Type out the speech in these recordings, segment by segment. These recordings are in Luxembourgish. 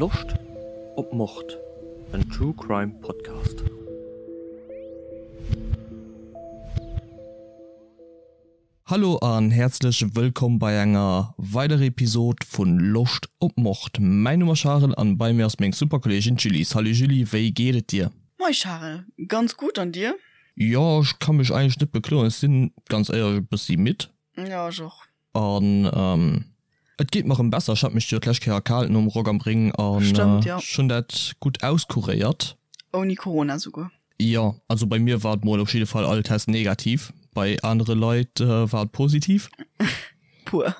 Loscht op Mord? En True Crime Podcast. Hallo an häerzlech wëllkomm bei enger weiderer Episode vun Loscht op Mord. Mäin Numm ass Charel an bei mir ass meng super Kolleegin d'Julie. Salut Julie, wéi geet et dir? Moi Charel, ganz gutt an dir? Jo, ech ka mech eigentlech net bekloen. Ech sinn ganz éierlech e bëssi midd. Jo, ech och. An et geet mer erëm besser. Ech hat mech jo d'lescht Kéier erkaalt nom Rock am Ring an ech hunn dat gutt auskuréiert. Ouni Corona souguer. Jo, also bei mir war et mol op jidde Fall all Test negativ. Bei anere Leit war et positiv. Puer.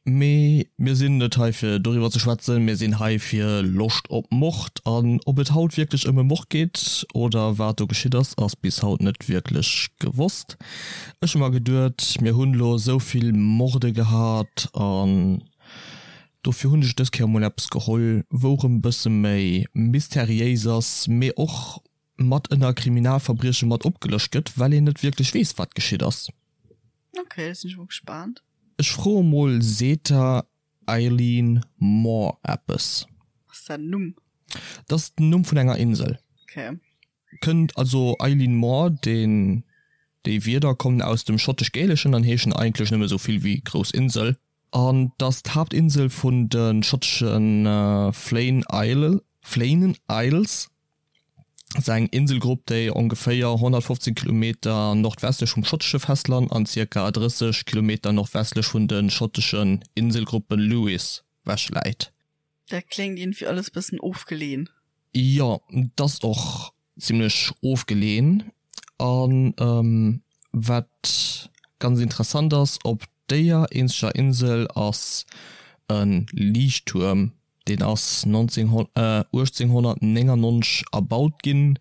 Mee mir sinn net hei fir doriwwer ze schwätzen, mir sinn hei fir Loscht op Mord. An ob et haut wierklech ëm e Mord geet oder wat do geschitt ass, ass bis haut net wierklech gewosst. Ech hu mer geduet, mir hunn elo esou vill Morde gehat an dofir hunn ech dës Kéier mol eppes geholl, wou erëm e bësse méi mysteriéis ass, mee och mat ënner Kriminalverbrieche mat opgelëscht gëtt, well een net wierklech weess, wat geschitt ass. Ok, da sinn ech mol gespaant. Ech froe mol, Seet der Eileen Moore eppes? Ass dat en Numm? Dat ass den Numm vun enger Insel. Ok. Kënnt also Eileen Moore, deen, déi Wierder kommen aus dem Schottesch-Gäleschen an heeschen eigentlech nëmme sou vill wéi grouss Insel. An 't ass d'Haaptinsel vun de schottesche Flann Isle, Flannan Isles. ass eng Inselgrupp, déi ongeféier 115 Kilometer nordwestlech vum schottesche Festland an zirka 30 Kilometer nordwestlech vun de schotteschen Inselgruppe Lewis wech läit. Dat kléngt iergendwéi alles bëssen ofgeleen. Jo, et ass och zimlech ofgeleen. A wat ganz interessant ass, op déier eenzeger Insel ass e Liichttuerm Deen ass 1899 erbaut ginn,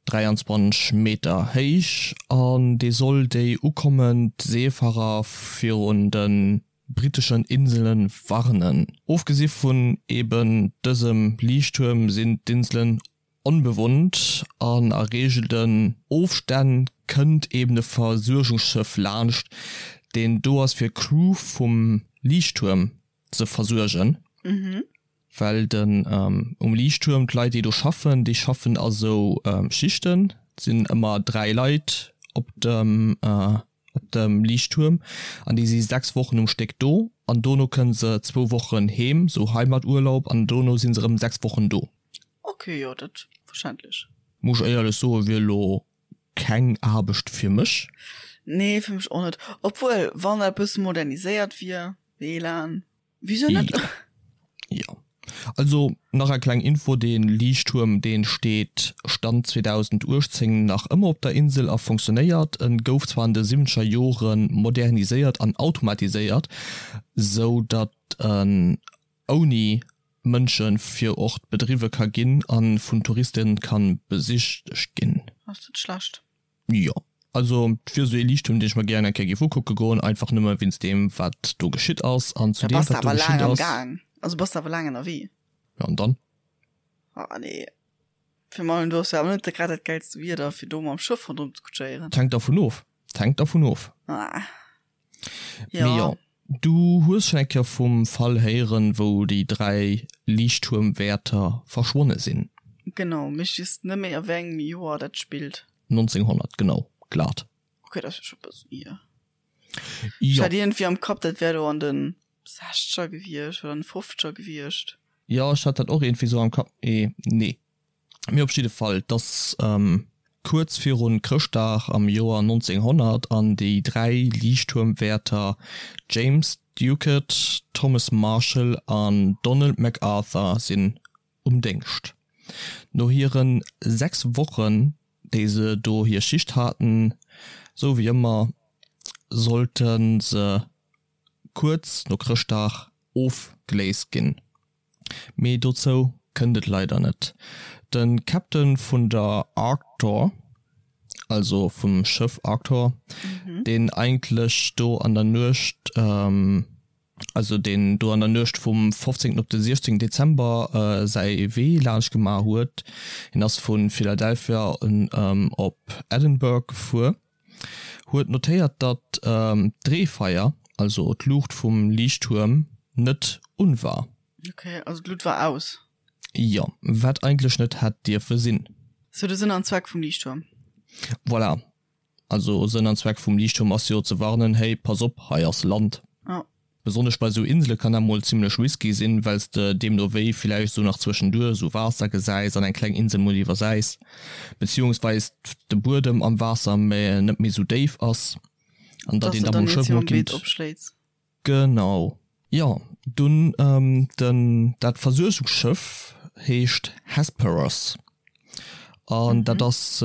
23 Meter héich, an dee soll déi ukommend Seefarer virun de britteschen Insele warnen. Ofgesi vun eben dësem Liichttuerm sinn d'Inselen onbewunnt an a reegelten Ofstänn kënnt eben e Versuergungsschëff laanscht, deen do ass fir d'Crew vum Liichttuerm ze versuergen, well den um Liichttuerm d'Leit déi do schaffen, déi schaffen a sou Schichten, et sinn ëmmer 3 Leit op dem op dem Liichttuerm an déi si 6 Wochen um Stéck do an dono kënne se zwou Wochen heem, sou Heimaturlaub an dono si se erëm 6 Wochen do. Ok, jo dat verständlech. Muss ech éierlech soen, wier elo keng Aarbecht fir mech. Nee, fir mech och net. Obwuel, wann dat e bësse moderniséiert wier. WLAN, wieso net? Jo. Also nach eng kleng Info, dee Liichttuerm deen steet Stand 2018 nach ëmmer op der Insel a funktionéiert. En gouf zwar an de siwwenzeger Jore moderniséiert an automatiséiert, sou datt en ouni Mënsche fir Ort bedriwwe ka ginn a vun Touriste ka besichtegt ginn. Ass net schlecht. Jo, also et wier esou ee Liichttuerm, deen ech mer gären eng Kéier géif ukucke goen, einfach nëmme wéinst deem, wat do geschitt ass. An zu Da deem, bass de wat do awer geschitt laang am ass. Gaang. Also bass de awer laang ënnerwee. Jo, an dann? Ah nee. Fir mei, du hues jo awer net grad dat gäilste Wieder, fir do mam Schëff ronderëm ze kutschéieren. Et hänkt dervun of. Et hänkt dervun of. Ah. Mee jo, du hues schonn eng Kéier vum Fall héieren, wou déi 3 Liichttuermwäerter verschwonne sinn. Genau, mee ech weess net méi a wéi engem Joer dat spillt. 1900, genau, glat. Ok, dat ass jo scho e bëssen hier. Ech hat iergendwéi am Kapp, dat wär do an de Sechzeger gewiescht oder an de Fofzeger gewiescht. Jo, ech hat dat och iergendwéi sou am Kapp, mee nee. Mee op jidde Fall, 't ass kuerz virun Chrëschtdag am Joer 1900 an déi 3 Liichttuermwäerter James Ducat, Thomas Marshall an Donald MacArthur sinn um Déngscht. No hiren 6 Wochen, déi se do hir Schicht haten, sou wéi ëmmer, sollte se kuerz no Chrëschtdag ofgeléist ginn. Mee dozou kënnt et leider net. De Captain vun der Arctor, also vum Schëff Arctor, deen eigentlech do an der Nuecht, also deen do an der Nuecht vum 15 op de 16 Dezember säi Wee laanscht gemaach huet, hien ass vu Philadelphia op Edinburgh gefuer, huet notéiert, datt d'Dreefeier, also d'Luucht vum Liichttuerm, net un war. Ok, also d'Lut war aus. Jo, wat eigentlech net hätt dierfe sinn. Sou de Sënn an Zweck vum Liichttuerm. Voilà. Also Sënn an Zweck vum Liichttuerm ass jo ze warnen, hey, pass op, hei ass Land. Jo. Besonnesch bei sou Insele kann dat mol zimlech risky sinn, well s de deemno wéi villäicht sou nach zwëschenduer sou Waasser gesäis an eng kleng Insel mol iwwersäis, beziehungsweis de Buedem am Waasser net méi sou déif ass an datt Dass een de da dann mol net Schëff sou mol am Beet kinnt. opschléits. Genau. Jo, dunn den dat Versuergungsschëff heescht Hesperus an dat ass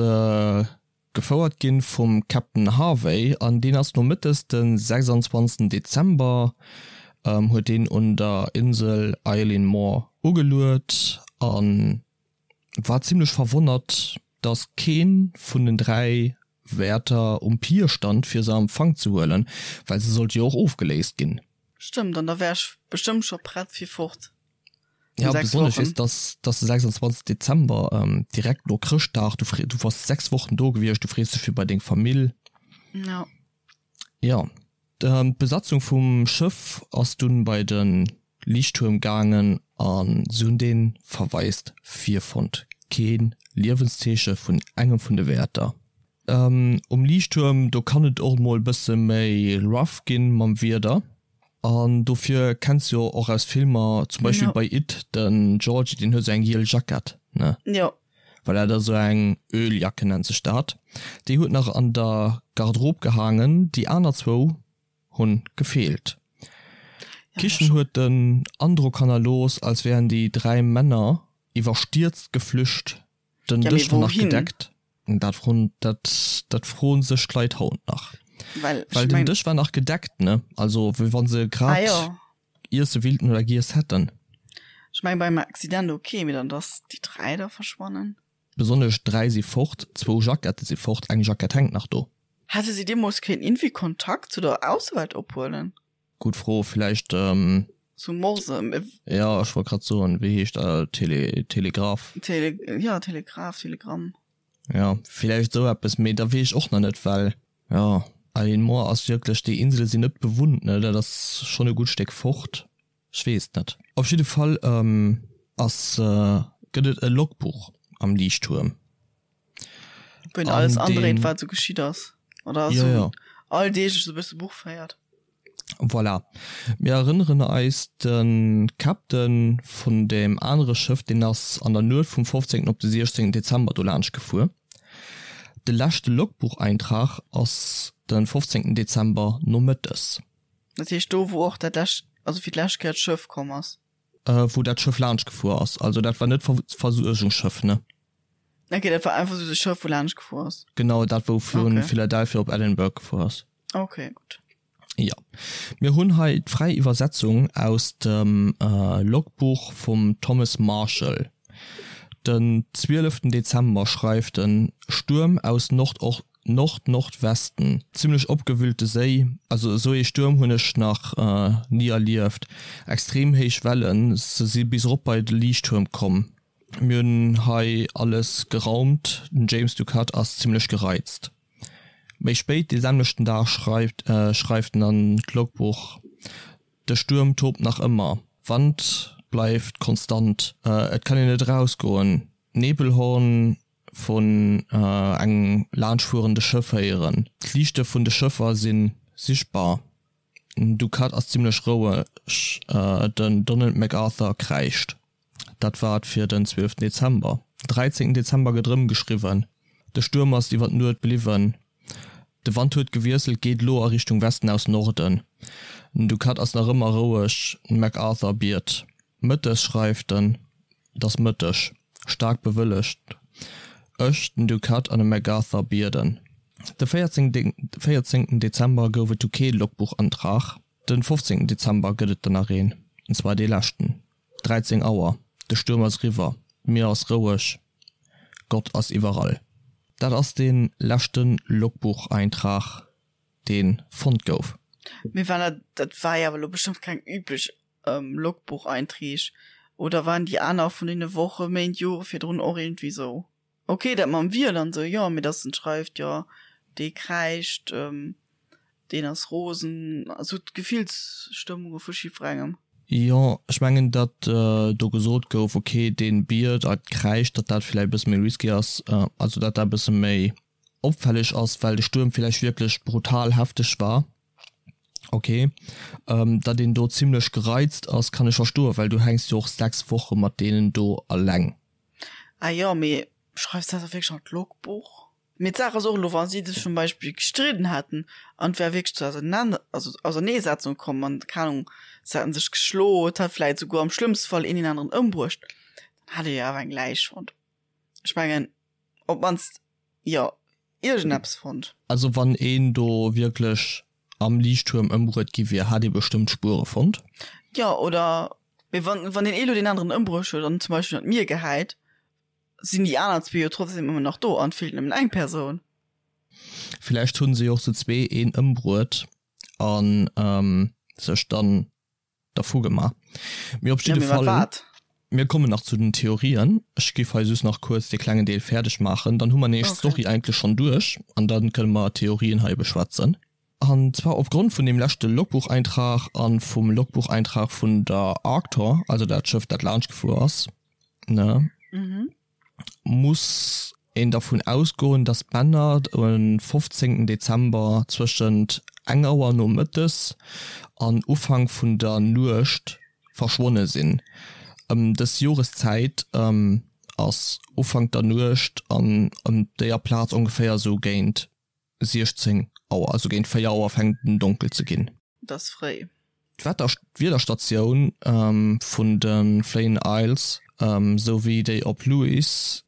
gefouert ginn vum Captain Harvey an deen ass nomëttes de 26 Dezember huet deen un der Insel Eilean Mor ugeluet an war zimlech verwonnert dass keen vun den 3 Wäerter um Pier stand fir se a Empfang ze huelen, well se sollt jo och ofgeléist ginn. Stëmmt, an da wär ech bestëmmt scho prett fir fort. Ja, besonnesch weess dass dass de 26 Dezember direkt no Chrëschtdag, du free du wars 6 Wochen do gewiescht, du frees dech fir bei deng Famill. Ja. Ja, d'Besatzung vum Schëff ass dunn bei de Liichttuerm gaangen a se hunn dee verwaist virfonnt. Kee Liewenszeeche vun engem vun de Wäerter. Um Liichttuerm, do kann et och mol bësse méi rough ginn mam Wieder. An dofir kenns jo och aus Filmer, zum Beispill Ja. bei It, den Georgie, deen huet sou eng giel Jackett, ne? Jo. Well dat ass sou eng Öljacke nennt sech dat. Déi huet nach an der Garderobe gehaangen, déi aner zwou hunn gefeelt. D'Kichen huet den Androck hannerlooss, als wären déi 3 Männer iwwerstierzt geflücht, den Ja, mee Dësch war nach wouhin? gedeckt. Dat froen, dat, dat froen sech d'Leit haut nach. Well, ech Well den meng. Dësch war nach gedeckt, ne? Also wéi wann se Ah grad jo. iesse willten oder giess hätten. Ech meng beim Accident ok, mee dann dass déi 3 da verschwannen. Besonnesch 3 si fort, zwou Jackette si fort, eng Jackett hänkt nach do. Hätte si deemools kéinten iergendwéi Kontakt zu der Aussewelt ophuelen? Gutt Fro, villäicht. Zu Morse. Jo, ech wollt grad soen, wéi heescht dat, Tele, Telegraph? Tele, jo, Telegraph, Telegramm. Jo, villäicht esou eppes, mee da weess ech och nach net, well, jo, Eileen Moore ass wierklech, déi Insele sinn net bewunnt, ne, dat ass schonn e gutt Stéck fort, ech weess et net. Op jidde Fall ass, gëtt et e Logbuch am Liichttuerm. Wou een alles andréit, wat esou geschitt ass, oder esou alldeeglech esou e bësse Buch féiert. Voilà. Mir erënneren eis, de Captain vun deem anere Schëff, deen ass an der Nuet vum 15. op de 16. Dezember do laanscht gefuer. De leschte Logbucheintrag ass de 15. Dezember nomëttes. Dat heescht do, wou och dat lescht, also fir d'lescht Kéier d'Schëff komm ass? Wou dat Schëff laanscht gefuer ass. Also dat war net d'Versuergungsschëff, ne? Ok, dat war einfach sou de Schëff, wou laanscht gefuer ass. Genau, dat wou vu Philadelphia op Edinburgh gefuer ass. Ok, gutt. Jo, mir hunn hei d'fräi Iwwersetzung aus dem Logbuch vum Thomas Marshall. Den 12 Dezember schreift en, Stuerm aus Nord-Nordwesten, zimmlech opgewüllte Séi, also esou ee Stuerm hunn ech nach ni erlieft, extrem héich Wellen, se si bis erop bei de Liichttuerm komm. Mir hunn hei alles geraumt, den James Ducat ass zimmlech gereizt. Méi spéit dee selwechten Dag schreift schreift en an d'Logbuch, De Stuerm tobt nach ëmmer, Wand bleift konstant, et kann een net erausgoen, Nebelhorn vun engem laanschtfuerende Schëff héieren, d'Liichte vun de Schëffer si sichtbar, den Ducat ass zimmlech roueg, den Donald MacArthur kräischt. Dat war et fir den 12 Dezember. Den 13 Dezember gëtt erëm geschriwwen, De Stuerm ass iwwer d'Nuet bliwwen, de Wand huet gewiesselt, geet elo a Richtung Westen aus Norden. Den Ducat ass nach ëmmer roueg, den MacArthur biet. Mëttes schreift en, Et ass Mëtteg, staark bewëllegt, ech, den Ducat an de MacArthur bieden. De 14 Dezember gouf et du kee Logbuchantrag, den 15 Dezember gëtt et der nach een, an zwar dee leschten. 13 Auer, de Stuerm ass eriwwer, d'Mier ass roueg, Gott ass iwwerall. Dat ass dee leschte Logbucheintrag, dee fonnt gouf. Mee war dat, dat war jo awer elo bestëmmt keng üblech Logbucheinträg, oder waren déi aner vun deene Woche, Méint, Jore virdrun och iergendwéi sou? Ok, dat mam Wiel an sou, jo, mee dass en schreift, jo, dee kräischt, deen ass rosen, also d'Gefillsstëmmunge vu jiddwerengem. Jo, ech mengen, datt do gesot gouf, ok, dee biet a kräischt, datt dat vläicht e bësse méi risky ass, also datt dat e bësse méi opfälleg ass, well de Stuerm vläicht wierklech brutal hefteg war. Ok, datt een do zimlech gereizt ass, kann ech verstoen, well du hänks jo och 6 Woche mat deenen do alleng. Ah jo, mee schreifs dat da wierklech an d'Logbuch? Mee d'Saach ass och elo, wa si sech zum Beispill gestridden hätten an et wär wierklech zu Auserneesetzung komm an, keng Ahnung, se hätten sech geschloen, et hätt vläit souguer am schlëmmste Fall een deen aneren ëmbruecht, dann hätt ee jo awer eng Läich fonnt. Ech mengen, op d'mannst, jo, iergendeppes fonnt. Also wann een do wierklech am Liichttuerm ëmbruet gi wier, hätt ee bestëmmt Spuere fonnt. Jo, oder, mee wann, wann deen ee elo deen aneren ëmbruecht huet an zum Beispill an d'Mier gehäit, sinn déi aner zwee jo trotzdem ëmmer nach do an et feelt nëmmen eng Persoun. Villäicht hunn se jo och zu zwee een ëmbruet an sech dann dervu gemaach. Mee op jidde Fall, mir kommen nach zu den Theorien. Ech géif hei just nach kuerz dee klengen Deel fäerdeg maachen, dann hu mer nämlech d'Story eigentlech schonn duerch an dann kënne mer d'Theorien hei beschwätzen. An zwar opgrond vun deem leschte Logbucheintrag a vum Logbucheintrag vun der Arctor, also dat Schëff dat laanscht gefuer ass, ne, muss een dervun ausgoen, dass d'Männer um 15 Dezember zwëschent eng Auer nomëttes an Ufank vun der Nuecht verschwonne sinn. Ëm dës Joreszäit ass Ufank der Nuecht an ëm déier Plaz ongeféier esou géint 16 Auer, also géint 4 Auer fänkt en donkel ze ginn. Et ass fréi. D'Wiederstatioun vun de Flannan Isles sou wéi déi op Lewis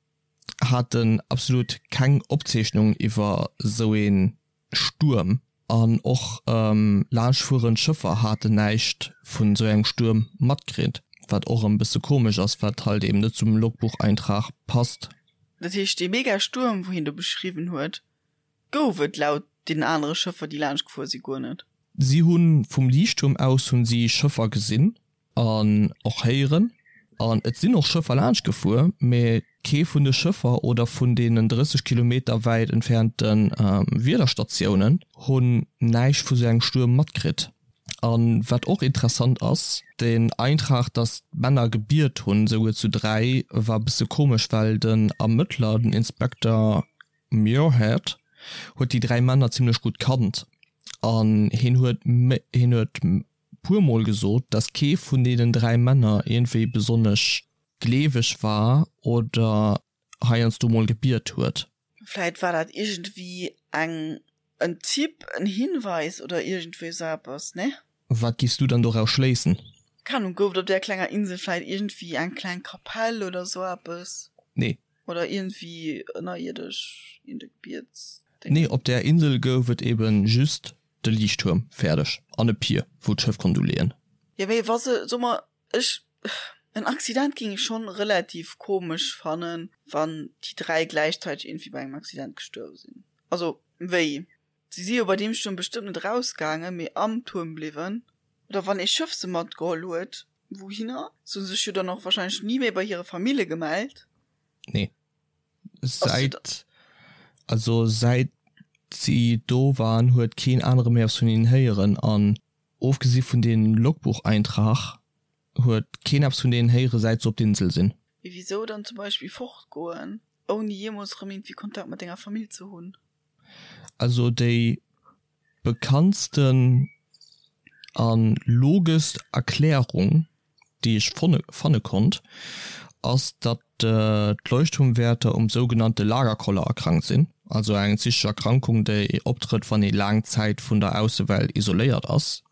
haten absolut keng Opzeechnung iwwer sou ee Stuerm an och laanschtfuerend Schëffer haten näischt vun sou engem Stuerm matkritt, wat och erëm bësse komesch ass, wat halt eben net zum Logbucheintrag passt. Dat heescht dee mega Stuerm wou hien do beschriwwen huet, gouf et laut deenen anere Schëffer déi laanscht gefuer si guer net. Si hu vum Liichttuerm aus hunn si Schëffer gesinn an och héieren an et sinn och Schëffer laanscht gefuer, mee kee vun de Schëffer oder vun deenen 30 Kilometer wäit entfernte Wiederstatiounen hunn näischt vu sou engem Stuerm matkritt. An wat och interessant ass, den Eintrag dass d'Männer gebiet hunn, souguer zu 3, war bësse komesch, well den Ermëttler, den Inspekter Muirhead, huet déi 3 Männer zimlech gutt kannt an hien huet hien huet puer mol gesot, dass kee vun deenen 3 Männer iergendwéi besonnesch gleeweg war oder heiansdo mol gebiet huet. Vläit war dat iergendwéi eng, en Tipp, en Hinweis oder iergendwéi sou eppes, nee? Wat giffs du dann doraus schléissen? Keng Ahnung, gouf et op där klenger Insel vläit iergendwéi eng kleng Kapell oder sou eppes? Nee. Oder iergendwéi ënnerierdesch iergend e Gebietsdéngen? Nee, op där Insel gouf et eben just de Liichttuerm, fäerdeg, an e Pier, wou d'Schëff konnt uleeën. Jo, mee wa se, soe mer, Ech, en Accident ging ech schon relativ komesch fannen, wann déi 3 gläichzäiteg iergendwéi bei engem Accident gestuerwe sinn. Also wéi? Si si jo bei deem Stuerm bestëmmt net erausgaangen, mee am Tuerm bliwwen. Oder wann ee Schëff se matgeholl huet, wouhinner? Se hu sech jo dann och wahrscheinlech ni méi bei hire Famille gemellt. Nee. Säit, also säit si do waren, huet keen anere méi eppes vun hinnen héieren an Ofgesi vun deem Logbucheintrag huet keen eppes vun deenen héiere säit se op d'Insel sinn. Mee wisou dann zum Beispill fortgoen, ouni jeemools rëm iergendwéi Kontakt mat denger Famill ze hunn? Also déi bekanntsten a logeschst Erklärung déi ech fanne konnt, ass datt d'Leuchtturmwäerter um sougenannte Lagerkoller erkrankt sinn, also eng psychesch Erkrankung, déi optrëtt, wann ee laang Zäit vun der Aussewelt isoléiert ass.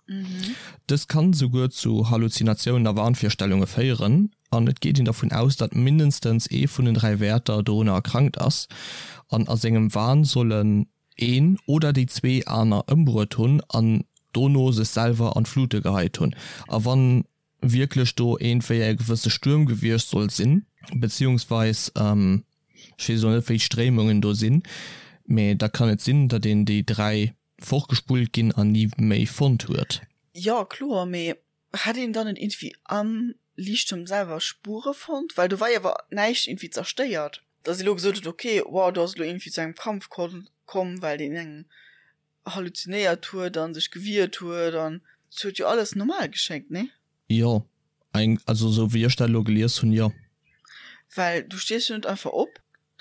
Dës kann esouguer zu Halluzinatiounen a Wahnvirstellunge féieren, an et geet een dervun aus, datt mindestens ee vun den 3 Wäerter dorunner erkrankt ass an a sengem Wahn sollen een oder déi zwee aner ëmbruet hunn an dono sech selwer an d'Flute geheit hunn. A wann wierklech do iergendwéi e gewësse Stuerm gewiescht soll sinn, beziehungsweis ech weess elo net wéi d'Stréimungen do sinn, mee da kann et sinn, datt een déi 3 fortgespullt ginn an ni méi fonnt huet. Jo kloer, mee Hätt een dann net iergendwéi am Liichttuerm selwer Spuere fonnt? Well do war jo awer näischt iergendwéi zerstéiert. Datt ee lo gesot huet, ok, wow, do ass elo iergendwéi zu engem Kampf komm, well deen eng halluzinéiert huet a sech gewiert huet an et huet jo alles normal geschéngt, nee? Jo, eng, also sou wéi ech dat elo gelies hunn, jo. Well du stees jo net einfach op,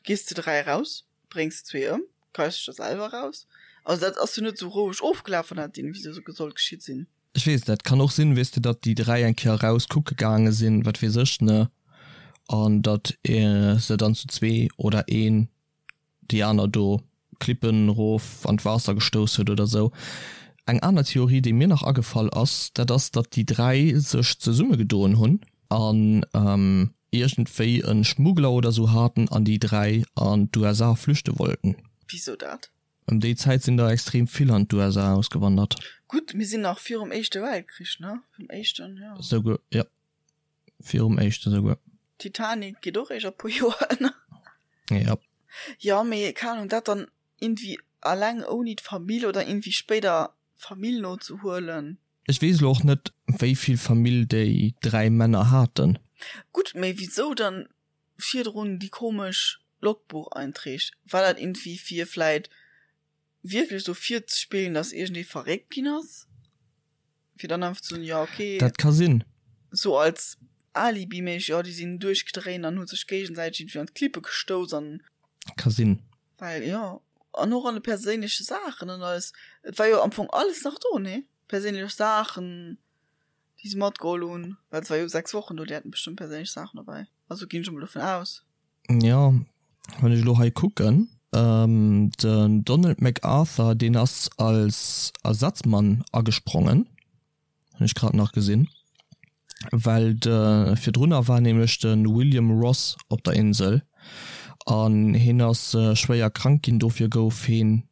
gees zu 3 eraus, bréngs zwee ëm, geis dech da selwer eraus. Also dat ass jo net sou roueg ofgelaf, wann dat iergendwéi sou sollt geschitt sinn. Ech weess net, kann och sinn, weess de, datt déi 3 eng Kéier eraus kucke gaange sinn, wat weess ech, ne, an datt se dann zu zwee oder een déi aner do Klippen erof an d'Waasser gestouss huet oder sou. Eng aner Theorie, déi mir nach agefall ass, dat ass, datt déi 3 sech zesummegedoen hunn an iergendwéi e Schmuggler oder sou haten an déi 3 an d'USA flüchte wollten. Wisou dat? Ëm déi Zäit sinn der extrem vill an d'USA ausgewandert. Gutt, mir sinn nach virum Éischte Weltkrich, ne? Virum Éischten, jo. Souguer, jo. Virum éischte souguer. Titanic geet och eréischt a puer Joer ënner. Ja. Jo, mee keng Ahnung, dat dann iergendwéi alleng ouni d'Famill oder iergendwéi spéider d'Famill nozehuelen. Ech weess elo och net, wéi vill Famill déi 3 Männer haten. Gutt, mee wisou dann virdrun déi komesch Logbucheinträg? War dat iergendwéi fir vläit wierklech sou virzespillen, dass iergendee verréckt ginn ass, fir dann einfach ze soen, jo okay. Dat ka sinn. Sou als Alibi-méisseg, jo déi sinn duerchgedréint an hu sech géigesäiteg iergendwéi an d'Klippe gestouss an. Ka sinn. Well jo, an och an de perséinleche Saachen an alles, et war jo am Fong alles nach do, nee? Perséinlech Saachen, déi se matgeholl hunn, well se war jo 6 Wochen do, déi haten bestëmmt perséinlech Saachen dobäi, also ginn ech emol dovun aus. Jo, wann ech elo hei kucken, den Donald MacArthur, deen ass als Ersatzmann agesprongen, hunn ech grad nach gesinn, well de virdrunner war nämlech de William Ross op der Insel an hien ass schwéier krank ginn, dofir gouf heen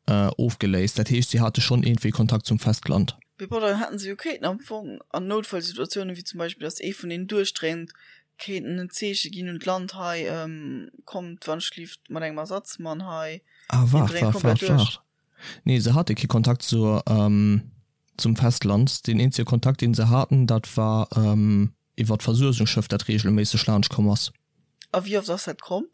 ofgeléist. Dat heescht, si hate schonn iergendwéi Kontakt zum Festland. Mee bon, dann hätten se jo kéinten am Fong an Noutfallsituatiounen, wéi zum Beispill, datt ee vun deenen duerchdréint, kéinten en Zeeche ginn un d'Land, hei, kommt wannschlift mat engem Ersatzmann hei, Ah, deen waart, dréint waart, komplett waart, duerch. waart. Nee, se hate kee Kontakt zur, zum Festland. Deen eenzege Kontakt, deen se haten, dat war iwwer d'Versuergungsschëff, dat reegelméisseg laanscht komm ass. A wéi oft ass dat komm?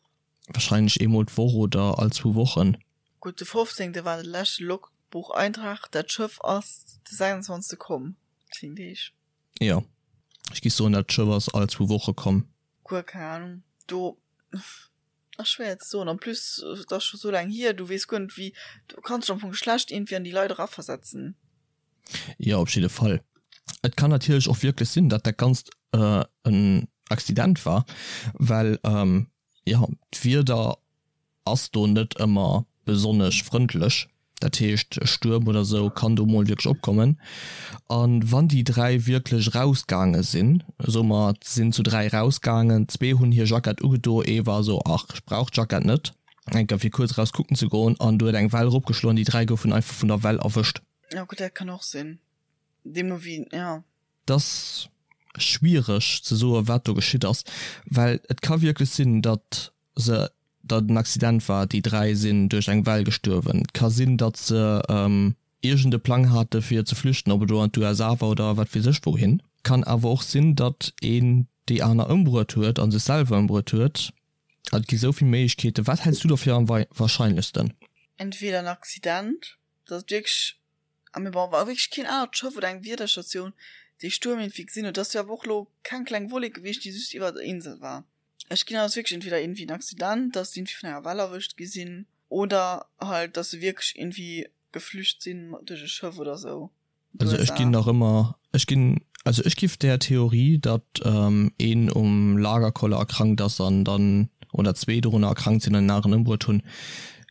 Wahrscheinlech eemol d'Woch oder all zwou Wochen. Gutt, de 15. war de leschte Logbucheintrag, dat Schëff ass de 26. komm, 10 Deeg. Jo, ech géif soen, dat Schëff ass all zwou Woche komm. Guer keng Ahnung, do ass schwéier ze soen. En plus, et ass scho sou laang hier, du weess guer net wéi, du kanns dech am Fong schlecht iergendwéi an déi Leit eraversetzen. Jo, op jidde Fall. Et kann natierlech och wierklech sinn, datt dat Ganzt en Accident war, well jo, d'Wieder ass do net ëmmer besonnesch frëndlech. Dat heescht, e Stuerm oder sou kann do mol wierklech opkommen. A wann déi 3 wierklech erausgaange sinn, soe mer, se sinn zu 3 erausgaangen, zwee hunn hir Jackett ugedo, ee war sou, ach, ech brauch d'Jackett net, enker fir kuerz eraus kucken ze goen, an du huet eng Well eropgeschloen, déi 3 goufen einfach vun der Well erwëscht. Jo gutt, dat kann och sinn, deemno wéi, jo. 't ass schwiereg ze soe wat do geschitt ass, well et ka wierklech sinn, datt se, datt et en Accident war, déi 3 sinn duerch eng Well gestuerwen. Et ka sinn, datt se iergend e Plang hate fir ze flüchten, ob et elo an d'USA war oder wat weess ech wouhin. Kann awer och sinn, datt een déi aner ëmbruet huet a sech selwer ëmbruet huet. Et gi sou vill Méiglechkeeten. Wat häls du do fir am wahrscheinlechsten? Entweder en Accident, datt et wierklech, a mee bon, wa wierklech keen anert Schëff oder eng Wiederstatioun dee Stuerm iergendwéi gesinn huet, et ass jo awer och elo keng kleng Wollek gewiescht, déi just iwwer der Insel war. Ech ginn aus wierklech entweder iergendwéi en Accident, datt se iergendwéi vun enger Well erwëscht gi sinn, oder halt, datt se wierklech iergendwéi geflücht sinn duerch e Schëff oder sou. Also ech ginn nach ëmmer, ech ginn, also ech giff där Theorie, datt een um Lagerkoller erkrankt ass an dann, oder zwee dorunner erkrankt sinn an en aneren ëmbruet hunn,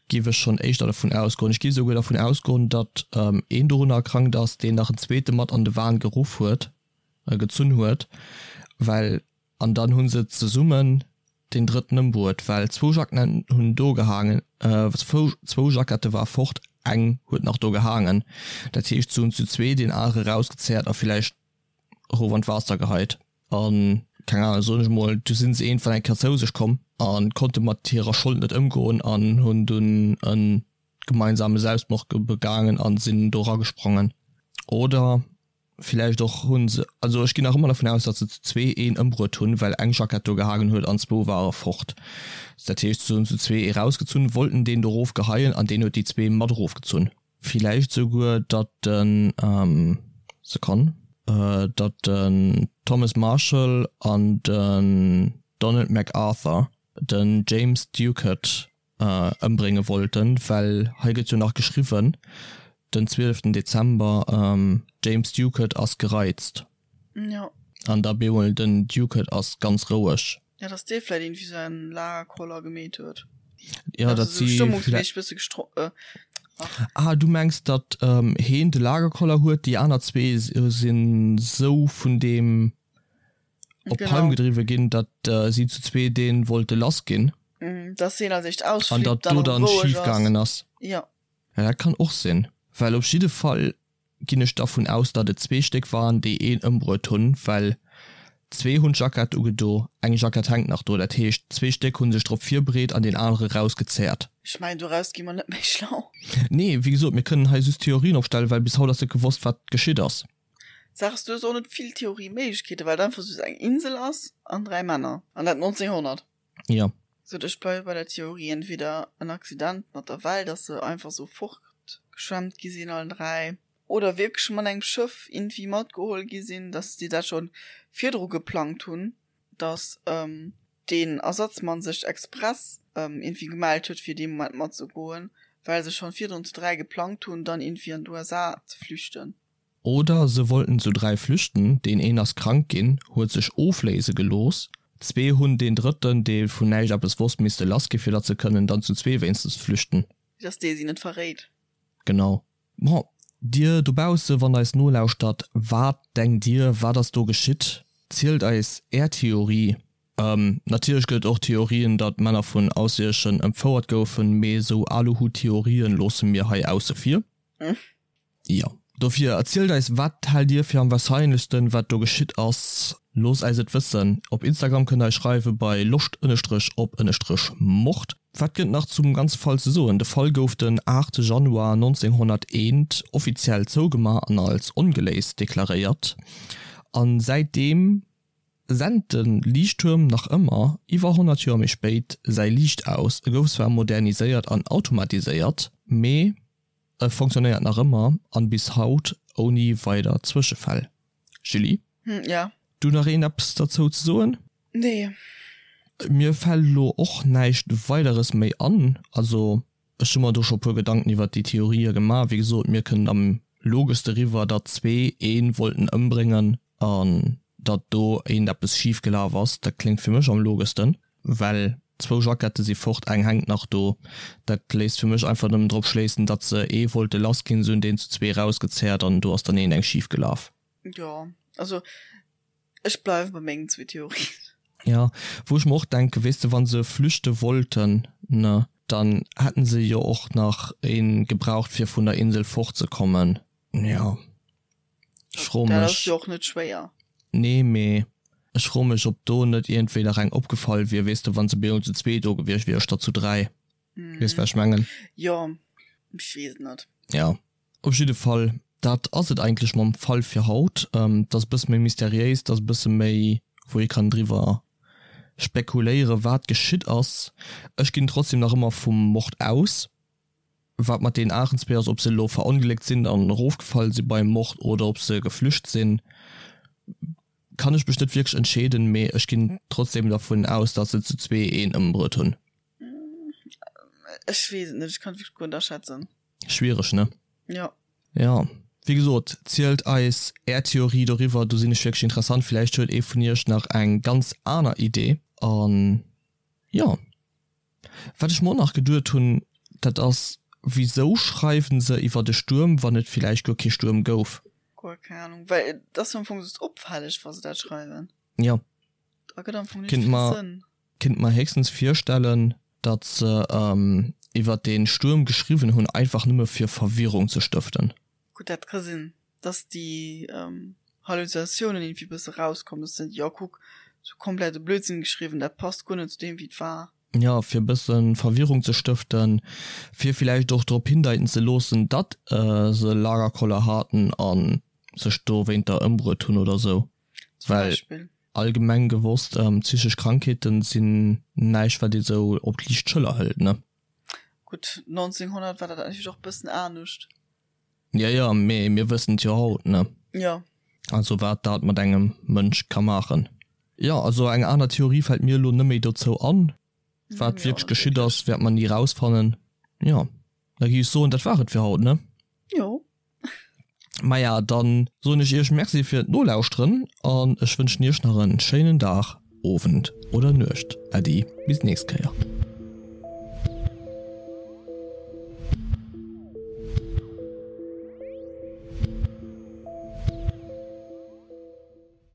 giff ech schonn éischter dervun ausgoen. Ech giff esouguer dervun ausgoen, datt een dorunner erkrankt ass, deen nach en zweete mat an de Wahn geruff huet, gezunn huet, well An dann hu se zesummen deen drëtten ëmbruet, well zwou Jacketten hunn do gehaangen, zwou Jackette war fort, eng huet nach do gehaangen. Dat heescht, se hunn zu zwee deen anere rausgezerrt a villäicht erof an d'Waasser geheit. An, keng Ahnung, soen ech emol, du sinn se iergendwann eng Kéier zou sech komm a konnte mat hirer Schold net ëmgoen an hunn dunn e gemeinsame Selbstmord begaangen a sinn do eragesprongen. Oder Villäicht och hunn se, also ech ginn nach ëmmer dervun aus, datt se zu zwee een ëmbruet hunn, well eng Jackett do gehaangen huet an zwou ware fort. Dat heescht, se hunn zu zwee ee rausgezunn, wollten deen do erofgeheien an deen huet déi zwee mat erofgezunn. Villäicht souguer, datt den, Sekonn. datt den Thomas Marshall an den Donald MacArthur den James Ducat ëmbrénge wollten, well hei gëtt jo nach geschriwwen, den 12 Dezember, James Ducat ass gereizt. Jo. An da bemol den Ducat ass ganz roueg. Ja, dass dee vläit irgendwie sou en Lagerkoller gemeet huet. Ja, dat si stëmmungsméisseg bësse gestro ach. Ah, du mengs datt heen de Lagerkoller huet, déi aner zwee sinn sou vun deem op d'Palm gedriwwe ginn, datt si zu zwee dee wollte lass ginn. Dass heen als éischt ausflippt, an datt do dann schif gaangen ass. Jo. Ja, dat kann och sinn, well op jidde Fall ginn ech dervun aus, datt et zwee Stéck waren, déi een ëmbruet hunn, well zwee hunn d'Jackett ugedo, eng Jackett hänkt nach do, dat heescht zwee Stéck hu sech drop virbereet an deen anere rausgezerrt. Ech mengen, doraus gi mer net méi schlau. Nee, wéi gesot, mir kënnen hei just Theorien opstellen, well bis haut ass net gewosst, wat geschitt ass. D'Saach ass, du hues och net vill Theorieméiglechkeeten, well et einfach just eng Insel ass an dräi Männer, an dat 1900. Jo. Sou, ech bleiwe bei der Theorie, entweder en Accident mat der Well, dass se einfach sou fortgeschwemmt gi sinn allen 3, oder wierklech mat engem Schëff irgendwie matgeholl gi sinn, dass déi dat scho virdru geplangt hunn, dass deen Ersatzmann sech express irgendwie gemellt huet fir dee Moment matzegoen, well se schonn virdrun zu 3 geplangt hunn, dann irgendwie an d'USA ze flüchten. Oder se wollten zu 3 flüchten, deen een ass krank ginn, huet sech ofléise gelooss, zwee hunn deen drëtten, dee vun näischt eppes wosst, misste lass gi fir datt se kënnen dann zu zwee wéinstens flüchten. Dass dee si net verréit. Genau. Bon, dir dobausse, wann der eis nolauschtert, wat denkt dir, wat ass do geschitt? Zielt eis är Theorie. Natierlech gëtt et och Theorien, datt Männer vun Ausserierdschen entfouert goufen, mee esou Aluhut-Theorien loosse mir hei ausse vir. Jo, dofir erzielt eis, wat haalt dir fir am wahrscheinlechsten, wat do geschitt ass? Loosst äis et wëssen. Op Instagram kënnt der eis schreiwe bei loscht ënnestrech op ënnestrech mord. Wat gëtt nach zum ganze Fall ze soen? De Fall gouf den 8 Januar 1901 offiziell zougemaach an als ongeléist deklaréiert. A säitdeem sent de Liichttuerm nach ëmmer, iwwer 100 Joer méi spéit, säi Liicht aus. E gouf zwar moderniséiert an automatiséiert, mee. E fonctionnéiert nach ëmmer an bis haut ouni weider Zwëschefäll. Julie? Hm, ja. Du nach een eppes derzou ze soen? Nee. Mir fällt elo och näischt weideres méi an. Also ech hu mer do scho puer Gedanken iwwert déi Theorië gemaach. Wéi gesot, mir kënnen am logeschste eriwwer, datt zwee ee wollten ëmbréngen an datt do eent eppes schif gelaf ass. Dat kléngt fir mech am logeschsten. Well zwou Jackette si fort, eng hänkt nach do. Dat léisst fir mech einfach nëmmen drop schléissen, datt se ee wollte lass ginn, se hunn deen zu zwee erausgezerrt an do ass dann een eng schif gelaf. Jo, also ech bleiwe bei mengen zwee Theorien. Jo, wou ech mer och denken, weess de, wa se flüchte wollten, ne, dann hätten se jo och nach ee gebraucht fir vun der Insel fortzekommen. Jo. Ech froe mech. Dat ass jo och net schwéier. Nee, mee ech froe mech, ob do net iergendwéi nach eng opgefall wier, weess de, wa se bemol zu zwee do gewiescht wiere statt zu dräi. Weess, wat ech mengen? Jo, ech weess et net. Jo, op jidde Fall, dat ass et eigentlech mam Fall fir haut. Et ass e bësse méi mysteriéis, et ass e bësse méi, wou ee kann driwwer spekuléieren, wat geschitt ass. Ech ginn trotzdem nach ëmmer vum Mord aus. Wat mat deenen aneren zwee ass, ob se elo verongléckt sinn an erofgefall si beim Mord oder ob se geflücht sinn, kann ech mech net wierklech entscheeden, mee ech ginn trotzdem dervun aus, datt se zu zwee een ëmbruet hunn. Ech weess et net, ech kann et wierklech guer net aschätzen. Schwiereg, ne? Jo. Jo, wéi gesot, zielt eis är Theorie doriwwer, do sinn ech wierklech interessant. Villäicht huet ee vun iech nach eng ganz aner Idee an jo. Wat ech mer och nach geduet hunn, dat ass, Wisou schreiwen se iwwert e Stuerm, wann et villäicht guer kee Stuerm gouf? Guer keng Ahnung, well et ass jo am Fong just opfälleg, wa se dat schreiwen. Jo. Da gëtt am Fong net vill Sënn. Kinnt mer héchstens virstellen, datt se iwwert dee Stuerm geschriwwen hunn, einfach nëmme fir Verwirrung ze stëften. Gutt, dat ka sinn. dass déi Halluzinatiounen irgendwie bësse rauskommen, dass se jo kuck, sou komplette Blödsinn geschriwwen, dat passt guer net zu deem wéi et war. Jo, fir e bësse Verwirrung ze stëften, fir villäicht och drop hindeiten ze loossen, datt se Lagerkoller haten a sech dowéinter ëmbruet hunn oder sou. Zum Beispill. Well allgemeng gewosst, psychesch Krankheeten sinn näischt wat ee sou op d'liicht Schëller hëlt, ne? Gutt, 1900 war dat natierlech och bëssen anescht. Jo, jo, mee mir wëssen et jo haut, ne? Jo. Also wat dat mat engem Mënsch ka maachen. Jo, also eng aner Theorie fält mir elo net méi dozou an. Wat wierklech geschitt ass, wäert mer ni rausfannen. Jo, da gi ech soen, dat war et fir haut, ne? Jo. Maja, dann soen ech iech Merci fir d'Nolauschteren an ech wënschen iech nach en schéinen Dag, Owend oder Nuecht. Äddi, bis d'nächst Kéier.